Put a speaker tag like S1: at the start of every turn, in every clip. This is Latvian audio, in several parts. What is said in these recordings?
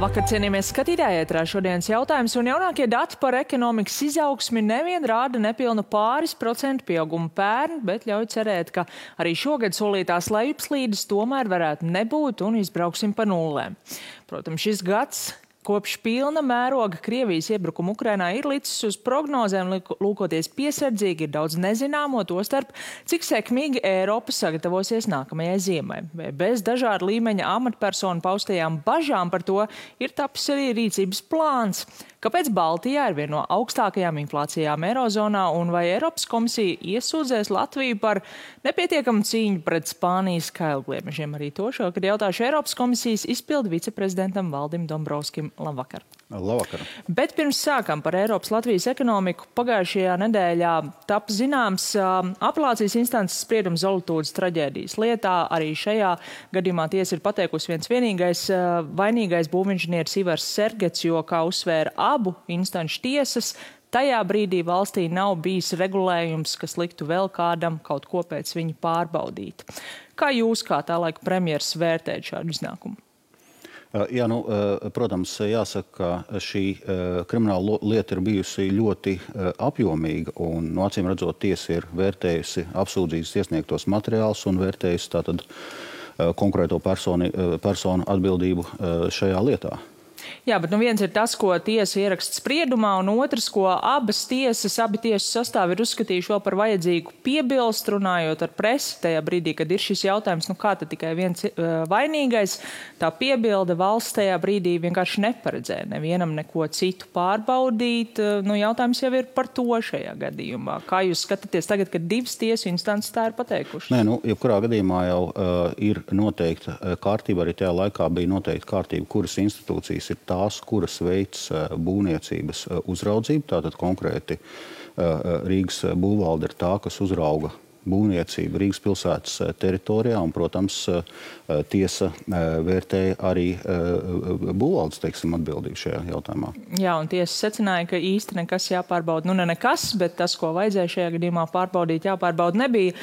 S1: Labvakar, cienījamies skatītāji, ētrā šodienas jautājums, un jaunākie dati par ekonomikas izaugsmi nevien rāda nepilnu pāris procentu pieaugumu pērn, bet ļauj cerēt, ka arī šogad solītās lejupslīdes tomēr varētu nebūt un izbrauksim pa nullēm. Protams, šis gads kopš pilna mēroga Krievijas iebrukuma Ukrainā ir licis uz prognozēm, lūkoties piesardzīgi, ir daudz nezināmo, tostarp, cik sekmīgi Eiropa sagatavosies nākamajai ziemai. Bez dažādu līmeņa amatpersonu paustajām bažām par to ir tapis arī rīcības plāns. Kāpēc Baltijā ir viena no augstākajām inflācijām Eirozonā un vai Eiropas komisija iesūdzēs Latviju par nepietiekamu cīņu pret Spānijas kailgliemežiem? Arī to šokad jautāšu Eiropas komisijas izpildu viceprezidentam Valdim Dombrovskim. Labvakar.
S2: Labvakar.
S1: Bet pirms sākam par Eiropas Latvijas ekonomiku, pagaidšajā nedēļā tapa zināms apelācijas instances spriedums Zolitūdes traģēdijas lietā. Arī šajā gadījumā tiesa ir pateikusi viens vienīgais vainīgais būvinženieris Ivars Sergets, jo, kā uzsvēra abu instanču tiesas, tajā brīdī valstī nav bijis regulējums, kas liktu vēl kādam kaut ko pēc viņa pārbaudīt. Kā jūs, kā tā laika premjeras, vērtējat šādu iznākumu?
S2: Jā, protams, jāsaka, ka šī krimināla lieta ir bijusi ļoti apjomīga un, acīm redzot, tiesa ir vērtējusi apsūdzības iesniegtos materiālus un vērtējusi tātad konkrēto personu atbildību šajā lietā.
S1: Jā, bet viens ir tas, ko tiesa ieraksta spriedumā, un otrs, ko abi tiesu sastāvi ir uzskatījuši vēl par vajadzīgu piebilst, runājot ar presi tajā brīdī, kad ir šis jautājums, kā tad tikai viens vainīgais, tā piebilde valsts tajā brīdī vienkārši neparedzēja nevienam neko citu pārbaudīt. Jautājums jau ir par to šajā gadījumā. Kā jūs skatāties tagad, kad divas tiesu instances tā ir pateikušas?
S2: Nē, jebkurā gadījumā jau ir noteikta kārtība, arī tajā laikā bija noteikta kārtība, kuras institūcijas ir tās, kuras veids būvniecības uzraudzību. Tātad konkrēti Rīgas būvvalde ir tā, kas uzrauga būvniecību Rīgas pilsētas teritorijā, un, protams, tiesa vērtēja arī būvvaldes, atbildību šajā jautājumā. Jā,
S1: un tiesa secināja, ka īsti nekas jāpārbauda. Ne nekas, bet tas, ko vajadzēja šajā gadījumā pārbaudīt, jāpārbauda nebija.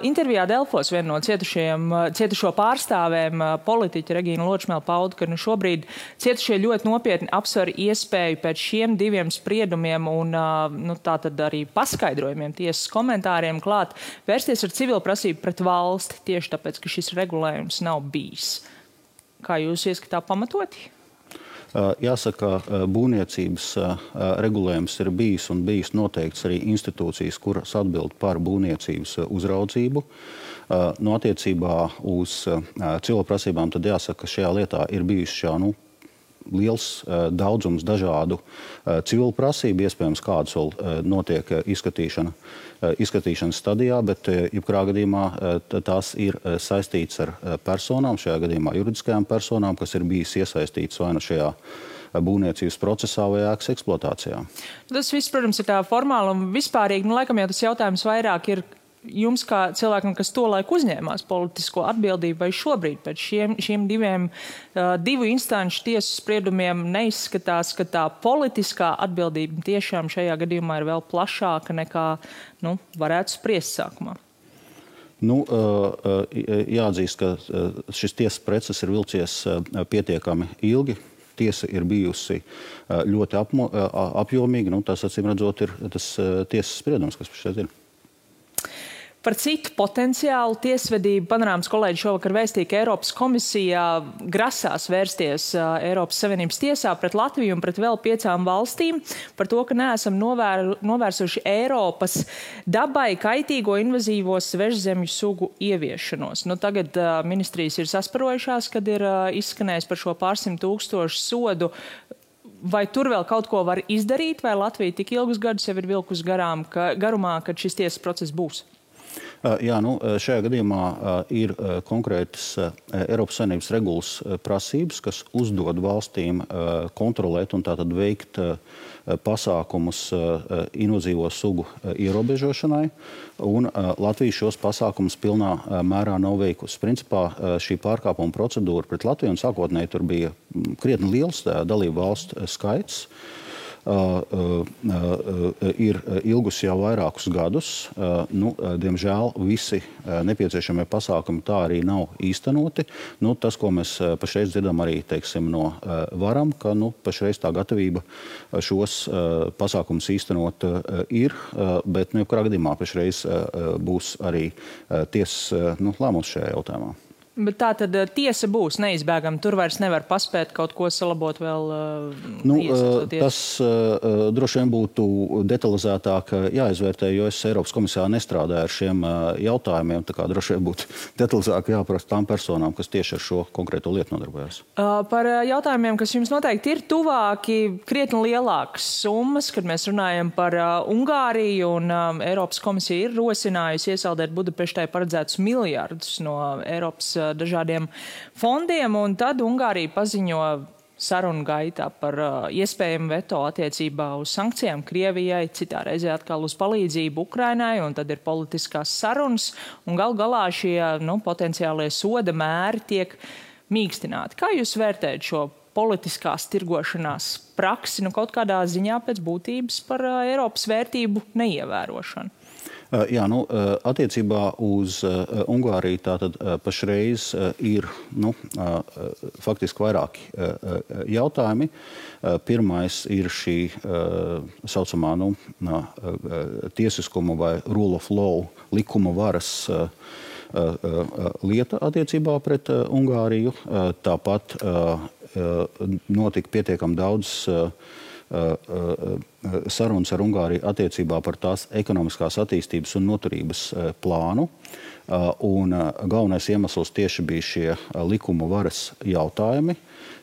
S1: Intervijā Delfos viena no cietušo pārstāvēm, politiķa Regīna Ločmēle, pauda, ka šobrīd cietušie ļoti nopietni apsver iespēju pēc šiem diviem spriedumiem un tātad arī paskaidrojumiem, tiesas komentāriem klāt vērsties ar civilu prasību pret valsti tieši tāpēc, ka šis regulējums nav bijis. Kā jūs ieskatā pamatoti?
S2: Jāsaka, būvniecības regulējums ir bijis noteikts arī institūcijas, kuras atbild par būvniecības uzraudzību. Attiecībā uz civilu prasībām tad jāsaka, ka šajā lietā ir bijuši liels daudzums dažādu civilu prasību, iespējams, kādas vēl notiek izskatīšanas stadijā, bet jebkurā gadījumā tās ir saistītas ar personām, šajā gadījumā juridiskajām personām, kas ir bijis iesaistītas vai šajā būvniecības procesā vai ēkas eksploatācijā. Tas
S1: viss, protams, ir tā formāli un vispārīgi. Laikam jau tas jautājums vairāk ir jums kā cilvēkam, kas tolaik uzņēmās politisko atbildību, vai šobrīd pēc šiem divu instanču tiesu spriedumiem neizskatās, ka tā politiskā atbildība tiešām šajā gadījumā ir vēl plašāka nekā varētu spriest sākumā?
S2: Jāatzīst, ka šis tiesas process ir vilcies pietiekami ilgi. Tiesa ir bijusi ļoti apjomīga. Tas, acīm redzot, ir tas tiesas spriedums, kas šeit ir.
S1: Par citu potenciālu tiesvedību Panorāmas kolēģi šovakar vēstīja, ka Eiropas komisija grasās vērsties Eiropas Savienības tiesā pret Latviju un pret vēl 5 valstīm par to, ka neesam novērsuši Eiropas dabai kaitīgo invazīvo svežzemju sugu ieviešanos. Tagad ministrijas ir sasparojušās, kad ir izskanējis par šo pārsimt tūkstošu sodu. Vai tur vēl kaut ko var izdarīt, vai Latvija tik ilgus gadus jau ir vilkus garumā, kad šis tiesas process būs?
S2: Jā, šajā gadījumā ir konkrētas Eiropas Savienības regulas prasības, kas uzdod valstīm kontrolēt un tātad veikt pasākumus invazīvo sugu ierobežošanai, un Latvija šos pasākumus pilnā mērā nav veikusi. Principā šī pārkāpuma procedūra pret Latviju, un sākotnēji tur bija krietni liels dalību valstu skaits, ir ilgusi jau vairākus gadus. Diemžēl visi nepieciešamie pasākumi tā arī nav īstenoti. Tas, ko mēs pašreiz dzirdam arī, teiksim, no varam, ka pašreiz tā gatavība šos pasākumus īstenot ir, bet jebkurā gadījumā pašreiz būs arī tiesas lēmums šajā jautājumā.
S1: Bet tā tad tiesa būs neizbēgama. Tur vairs nevar paspēt kaut ko salabot vēl
S2: Tas droši vien būtu detalizētāk jāizvērtē, jo es Eiropas komisijā nestrādāju ar šiem jautājumiem. Tā kā droši vien būtu detalizāk jāprasa tām personām, kas tieši ar šo konkrēto lietu nodarbojas.
S1: Par jautājumiem, kas jums noteikti ir tuvāki, krietni lielākas summas, kad mēs runājam par Ungāriju, un Eiropas komisija ir rosinājusi iesaldēt Budapeštai paredzētus miljardus no Eiropas dažādiem fondiem, un tad Ungārija paziņo sarunu gaitā par iespējamu veto attiecībā uz sankcijām Krievijai, citā reizē atkal uz palīdzību Ukrainai, un tad ir politiskās sarunas, un gal galā šie potenciālie soda mēri tiek mīkstināti. Kā jūs vērtējat šo politiskās tirgošanās praksi, kaut kādā ziņā pēc būtības par Eiropas vērtību neievērošanu?
S2: Jā, attiecībā uz Ungāriju tātad pašreiz ir faktiski vairāki jautājumi. Pirmais ir šī saucamā tiesiskuma vai rule of law, likuma varas lieta attiecībā pret Ungāriju. Tāpat notika pietiekami daudz sarunas ar Ungāriju attiecībā par tās ekonomiskās attīstības un noturības plānu. Un galvenais iemesls tieši bija šie likuma varas jautājumi.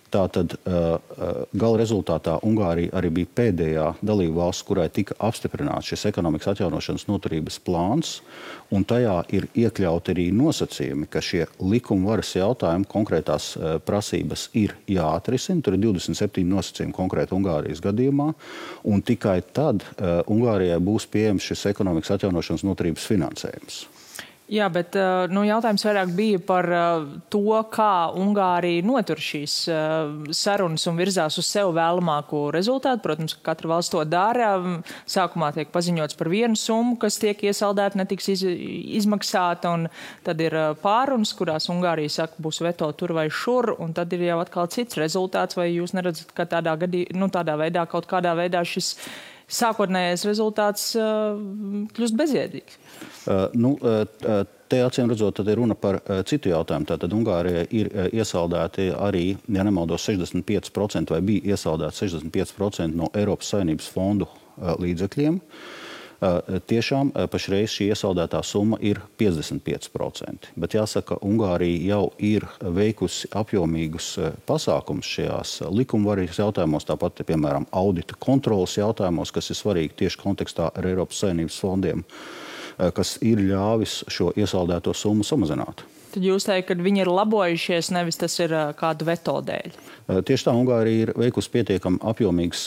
S2: Tātad gala rezultātā Ungārija arī bija pēdējā dalība valsts, kurai tika apstiprināts šis ekonomikas atjaunošanas noturības plāns, un tajā ir iekļauti arī nosacījumi, ka šie likuma varas jautājumi, konkrētās prasības ir jāatrisina. Tur ir 27 nosacījumi konkrēti Ungārijas gadījumā, un tikai tad Ungārijai būs pieejams šis ekonomikas atjaunošanas noturības finansējums.
S1: Jā, bet jautājums vairāk bija par to, kā Ungārija notur šīs sarunas un virzās uz sev vēlamāko rezultātu. Protams, ka katra valsts to dara. Sākumā tiek paziņots par vienu summu, kas tiek iesaldēta, netiks izmaksāta, un tad ir pārunas, kurās Ungārija saka, būs veto tur vai šur, un tad ir jau atkal cits rezultāts. Vai jūs neredzat, ka tādā veidā, kaut kādā veidā šis sākotnējais rezultāts kļūst bezjēdzīgs?
S2: Te acīm redzot, tad ir runa par citu jautājumu. Tātad Ungārijai ir iesaldēti arī, ja nemaldos, 65% vai bija iesaldēti 65% no Eiropas Savienības fondu līdzekļiem. Tiešām pašreiz šī iesaldētā summa ir 55%. Bet jāsaka, Ungārija jau ir veikusi apjomīgus pasākumus šajās likumvaras jautājumos, tāpat, piemēram, audita kontrolas jautājumos, kas ir svarīgi tieši kontekstā ar Eiropas Savienības fondiem, kas ir ļāvis šo iesaldēto summu samazināt.
S1: Tad jūs teikt, ka viņi ir labojušies, nevis tas ir kādu veto dēļ?
S2: Tieši tā, Ungārija ir veikusi pietiekami apjomīgas,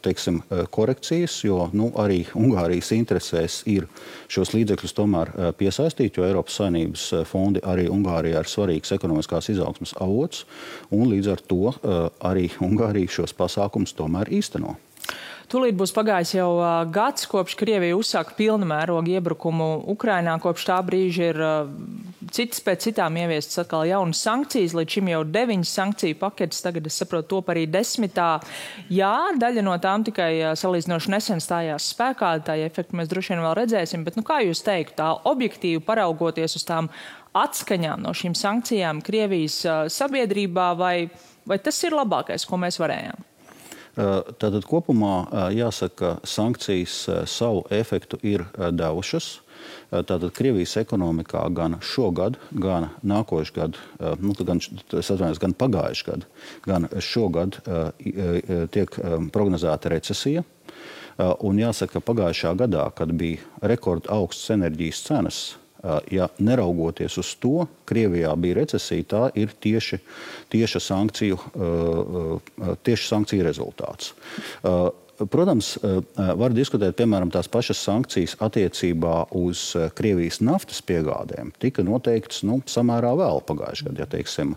S2: teiksim, korekcijas, jo arī Ungārijas interesēs ir šos līdzekļus tomēr piesaistīt, jo Eiropas Savienības fondi arī Ungārijā ir svarīgs ekonomiskās izaugsmes avots, un līdz ar to arī Ungārija šos pasākumus tomēr īsteno.
S1: Tūlīt būs pagājis jau gads, kopš Krievija uzsāka pilna mēroga iebrukumu Ukrainā. Kopš tā brīža ir citas pēc citām ieviestas atkal jaunas sankcijas. Līdz šim jau 9 sankciju paketes, tagad es saprotu top arī 10. Jā, daļa no tām tikai salīdzinoši nesen stājās spēkā, tā efektu mēs droši vien vēl redzēsim, bet kā jūs teiktu, tā objektīvi paraugoties uz tām atskaņām no šīm sankcijām Krievijas sabiedrībā, vai tas ir labākais, ko mēs varējām?
S2: Tātad kopumā jāsaka, ka sankcijas savu efektu ir devušas. Tātad Krievijas ekonomikā gan šogad, gan nākošu gadu, gan pagājuši gadu, gan šogad tiek prognozēta recesija. Un jāsaka, ka pagājušā gadā, kad bija rekord augsts enerģijas cenas, ja neraugoties uz to, Krievijā bija recesija, tā ir tieši sankciju rezultāts. Protams, var diskutēt, piemēram, tās pašas sankcijas attiecībā uz Krievijas naftas piegādēm. Tika noteikts samērā vēl pagājušajā gadā, ja teiksim,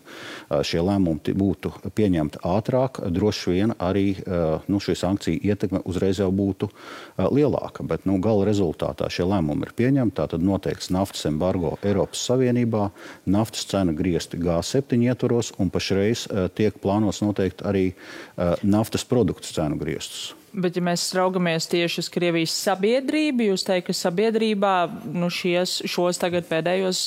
S2: šie lēmumi būtu pieņemti ātrāk, droši vien arī šī sankcija ietekme uzreiz jau būtu lielāka. Bet gala rezultātā šie lēmumi ir pieņemti, tātad noteikts naftas embargo Eiropas Savienībā, naftas cena griezti G7 ietvaros un pašreiz tiek plānots noteikt arī naftas produktu cenu griestus.
S1: Bet, ja mēs raugamies tieši uz Krievijas sabiedrību, jūs teikt, ka sabiedrībā šos tagad pēdējos,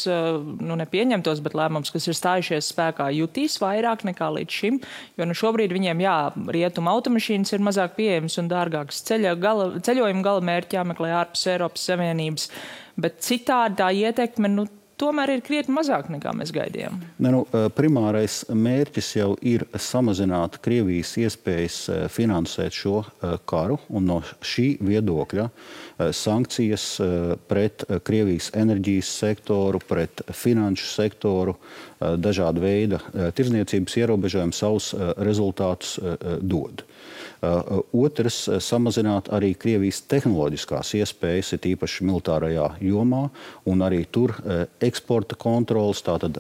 S1: nepieņemtos, bet lēmums, kas ir stājušies spēkā, jutīs vairāk nekā līdz šim, jo šobrīd viņiem, rietuma automašīnas ir mazāk pieejamas un dārgākas. Ceļojuma gala mērķi jāmeklē ārpus Eiropas Savienības, bet citādi tā ietekme, tomēr ir krietni mazāk nekā mēs gaidījām.
S2: Primārais mērķis jau ir samazināt Krievijas iespējas finansēt šo karu, un no šī viedokļa sankcijas pret Krievijas enerģijas sektoru, pret finanšu sektoru, dažāda veida tirdzniecības ierobežojumi savus rezultātus dod. Otrs, samazināt arī Krievijas tehnoloģiskās iespējas, ir īpaši militārajā jomā, un arī tur eksporta kontrolas, tātad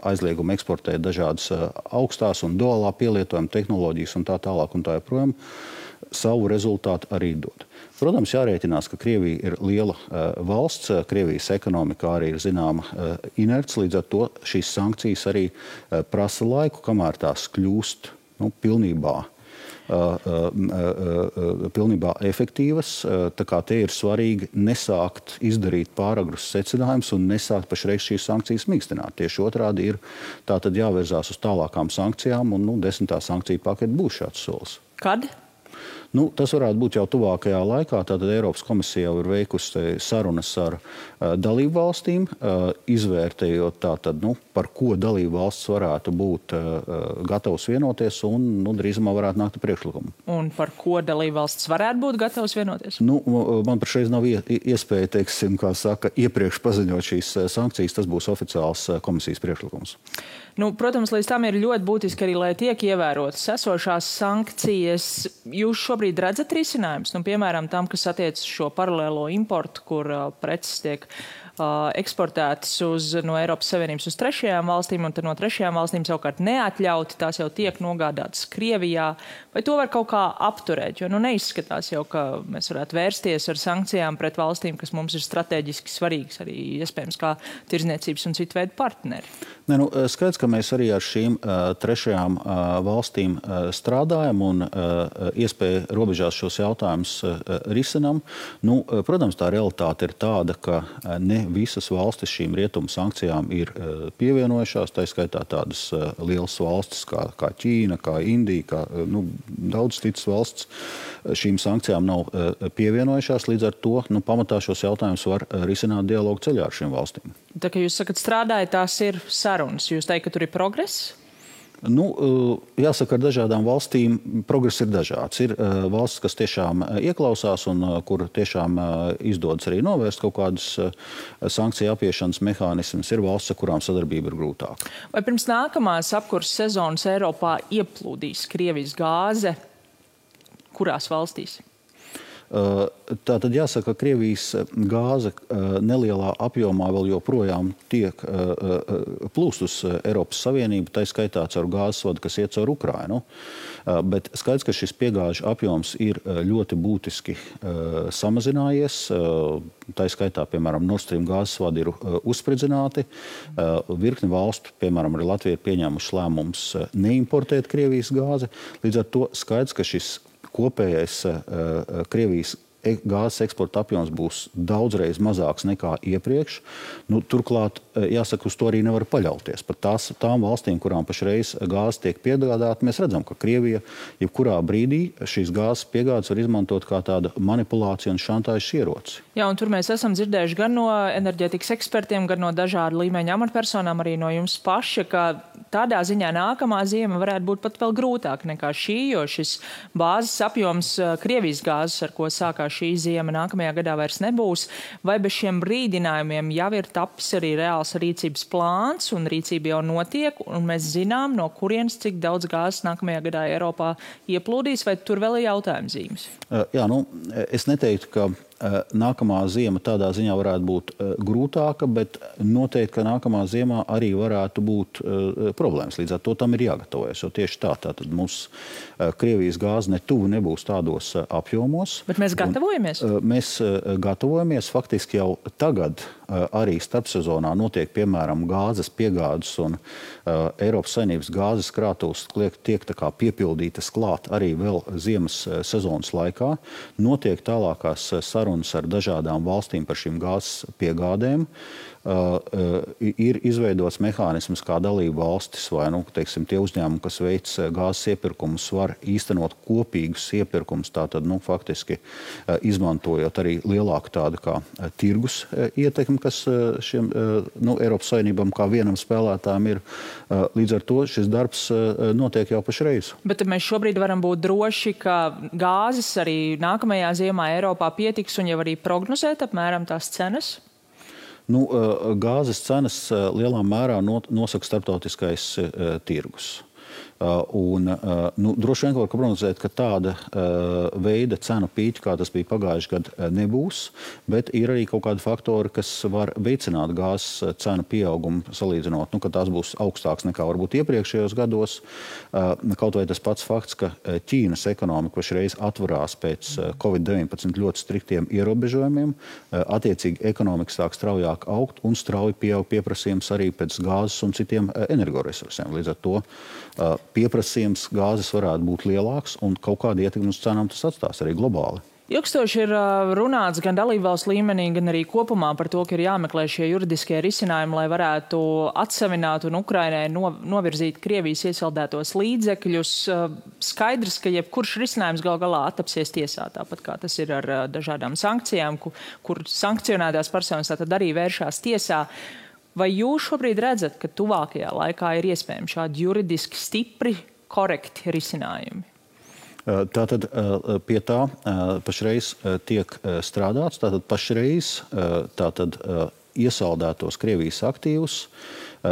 S2: aizliegumu eksportēt dažādas augstās un duālā pielietojuma tehnoloģijas un tā tālāk un tā joprojām, savu rezultātu arī dod. Protams, jārēķinās, ka Krievija ir liela valsts, Krievijas ekonomikā arī ir zināma inerts, līdz ar to šīs sankcijas arī prasa laiku, kamēr tās kļūst pilnībā efektīvas. Tā kā te ir svarīgi nesākt izdarīt pāragrus secinājumus un nesākt pašreiz šīs sankcijas mīkstināt. Tieši otrādi ir tātad jāvērzās uz tālākām sankcijām, un 10. sankciju pakete būs šāds solis.
S1: Kad?
S2: Tas varētu būt jau tuvākajā laikā. Tātad Eiropas komisija jau ir veikusi sarunas ar dalību valstīm, izvērtējot tātad, par ko dalību valsts varētu būt gatavs vienoties un drīzumā varētu nākt ar priekšlikumu.
S1: Un par ko dalību valsts varētu būt gatavs vienoties?
S2: Man pašreiz nav iespēja, teiksim, kā saka, iepriekš paziņot šīs sankcijas. Tas būs oficiāls komisijas priekšlikums.
S1: Protams, līdz tam ir ļoti būtiski arī, lai tiek ievērotas esošās sankcijas. Jūs šobrīd redzat risinājumus, piemēram, tam, kas attiecas šo paralēlo importu, kur preces tiek eksportētas no Eiropas Savienības uz trešajām valstīm, un tad no trešajām valstīm savukārt neatļauti, tās jau tiek nogādātas Krievijā. Vai to var kaut kā apturēt? Jo neizskatās jau, ka mēs varētu vērsties ar sankcijām pret valstīm, kas mums ir strateģiski svarīgas, arī iespējams kā tirdzniecības un citu veidu partneri.
S2: Skaidrs, ka mēs arī ar šīm trešajām valstīm strādājam un iespēja robežās šos jautājumus risinam. Protams, tā realitāte ir tāda, ka ne visas valstis šīm rietumu sankcijām ir pievienojušās. Tā skaitā tādas lielas valstis kā Ķīna, kā Indija, kā daudz citas valsts šīm sankcijām nav pievienojušās. Līdz ar to pamatā šos jautājumus var risināt dialogu ceļā ar šīm valstīm.
S1: Tā kā jūs sakat, strādājat, tās ir sarunas. Jūs teikt, ka tur ir progress?
S2: Jāsaka, ar dažādām valstīm progress ir dažāds. Ir valsts, kas tiešām ieklausās un kur tiešām izdodas arī novērst kaut kādus sankciju apiešanas mehānismus. Ir valsts, ar kurām sadarbība ir grūtāka.
S1: Vai pirms nākamās apkurses sezonas Eiropā ieplūdīs Krievijas gāze? Kurās valstīs?
S2: Tātad jāsaka, ka Krievijas gāze nelielā apjomā vēl joprojām tiek plūst uz Eiropas Savienību, tā skaitā caur gāzes vadu, kas iet caur Ukrainu. Bet skaidrs, ka šis piegāžu apjoms ir ļoti būtiski samazinājies. Tā skaitā, piemēram, Nord Stream gāzes vadi ir uzspridzināti. Virkni valstu, piemēram, arī Latvija ir pieņēmuši lēmums neimportēt Krievijas gāzi. Līdz ar to skaidrs, ka šis kopējais Krievijas gāzes eksporta apjoms būs daudzreiz mazāks nekā iepriekš. Turklāt, jāsaka, uz to arī nevar paļauties. Pat tām valstīm, kurām pašreiz gāze tiek piegādāta, mēs redzam, ka Krievija jebkurā brīdī šīs gāzes piegādes var izmantot kā tāda manipulācija un šantāžas ieroci.
S1: Jā, un tur mēs esam dzirdējuši gan no enerģētikas ekspertiem, gan no dažādu līmeņa amatpersonām, arī no jums paša, ka tādā ziņā nākamā ziema varētu būt pat vēl grūtāk nekā šī, jo šis bāzes apjoms, Krievijas gāzes, ar ko sākās šī ziema, nākamajā gadā vairs nebūs. Vai bez šiem brīdinājumiem jau ir tapis arī reāls rīcības plāns un rīcība jau notiek, un mēs zinām, no kurienes cik daudz gāzes nākamajā gadā Eiropā ieplūdīs, vai tur vēl ir jautājuma zīmes?
S2: Jā, es neteiktu, ka nākamā ziema tādā ziņā varētu būt grūtāka, bet noteikti, ka nākamā ziemā arī varētu būt problēmas. Līdz ar to tam ir jāgatavojas, jo tieši tātad mums Krievijas gāze netuvu nebūs tādos apjomos.
S1: Bet mēs gatavojamies?
S2: Mēs gatavojamies. Faktiski jau tagad arī starpsezonā notiek, piemēram, gāzes piegādes un Eiropas Savienības gāzes krātuves tiek tā kā piepildītas klāt arī vēl ziemas sezonas laikā. Notiek tālākās sarunas ar dažādām valstīm par šīm gāzes piegādēm. Ir izveidots mehānisms, kā dalību valstis vai teiksim, tie uzņēmumi, kas veic gāzes iepirkumus, var īstenot kopīgus iepirkumus, tātad faktiski izmantojot arī lielāku tādu kā tirgus ietekmi, kas šiem Eiropas Savienībām kā vienam spēlētājam ir. Līdz ar to šis darbs notiek jau pašreiz.
S1: Bet mēs šobrīd varam būt droši, ka gāzes arī nākamajā ziemā Eiropā pietiks un jau arī prognozēt apmēram tās cenas?
S2: Gāzes cenas lielā mērā nosaka starptautiskais tirgus. Droši vien var prognozēt, ka tāda veida cenu pīķi, kā tas bija pagājuši gadu, nebūs, bet ir arī kaut kādi faktori, kas var veicināt gāzes cenu pieaugumu salīdzinot, ka tās būs augstāks nekā varbūt iepriekšējos gados. Kaut vai tas pats fakts, ka Ķīnas ekonomika pašreiz atvarās pēc Covid-19 ļoti striktiem ierobežojumiem, attiecīgi ekonomika sāk straujāk augt un strauji pieaug pieprasījums arī pēc gāzes un citiem energoresursiem. Līdz ar to pieprasījums gāzes varētu būt lielāks un kaut kādu ietekmi uz cenām tas atstās arī globāli.
S1: Ilgstoši ir runāts gan dalībvalsts līmenī, gan arī kopumā par to, ka ir jāmeklē šie juridiskie risinājumi, lai varētu atsavināt un Ukrainai novirzīt Krievijas iesaldētos līdzekļus. Skaidrs, ka jebkurš risinājums gal galā attapsies tiesā, tāpat kā tas ir ar dažādām sankcijām, kur sankcionētās personas tātad arī vēršās tiesā. Vai jūs šobrīd redzat, ka tuvākajā laikā ir iespējami šādi juridiski stipri, korekti risinājumi?
S2: Tātad pie tā pašreiz tiek strādāts. Tātad pašreiz iesaldētos Krievijas aktīvus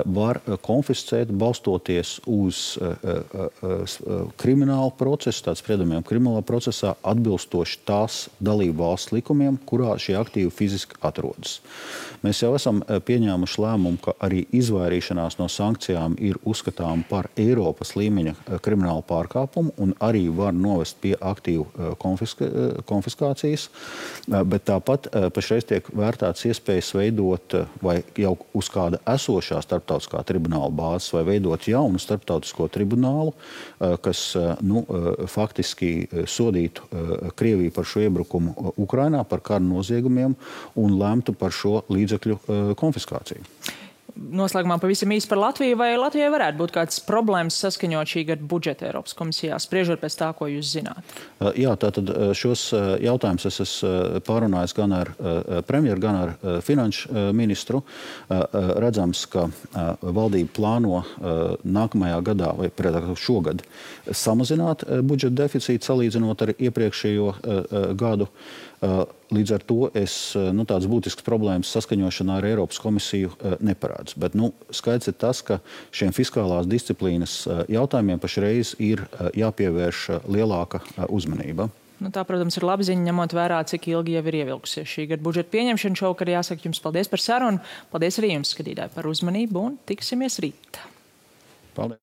S2: var konfiscēt, balstoties uz kriminālu procesu, tāds spriedumiem kriminālā procesā, atbilstoši tās dalību valsts likumiem, kurā šie aktīvi fiziski atrodas. Mēs jau esam pieņēmuši lēmumu, ka arī izvairīšanās no sankcijām ir uzskatām par Eiropas līmeņa kriminālu pārkāpumu un arī var novest pie aktīvu konfiskācijas, bet tāpat pašreiz tiek vērtēts iespējas veidot vai jau uz kāda esošā starptautiskā tribunāla bāzes vai veidot jaunu starptautisko tribunālu, kas faktiski sodītu Krieviju par šo iebrukumu Ukrainā, par kara noziegumiem un lemtu par šo līdzekļu konfiskāciju.
S1: Noslēgumā pavisam īsi par Latviju. Vai Latvijai varētu būt kāds problēmas saskaņot šī gada budžeta Eiropas komisijā, spriežot pēc tā, ko jūs zināt?
S2: Jā, tātad šos jautājumus es esmu pārunājis gan ar premjeru, gan ar finanšu ministru. Redzams, ka valdība plāno nākamajā gadā vai šogad samazināt budžeta deficītu salīdzinot ar iepriekšējo gadu. Līdz ar to tādas būtiskas problēmas saskaņošanā ar Eiropas komisiju neparādz. Bet skaidrs ir tas, ka šiem fiskālās disciplīnas jautājumiem pašreiz ir jāpievērš lielāka uzmanība.
S1: Tā, protams, ir laba ziņa, ņemot vērā, cik ilgi jau ir ievilkusies šī gada budžeta pieņemšana. Šovakar jāsaka jums paldies par sarunu. Paldies arī jums, skatītāji, par uzmanību un tiksimies rīt.
S2: Paldies.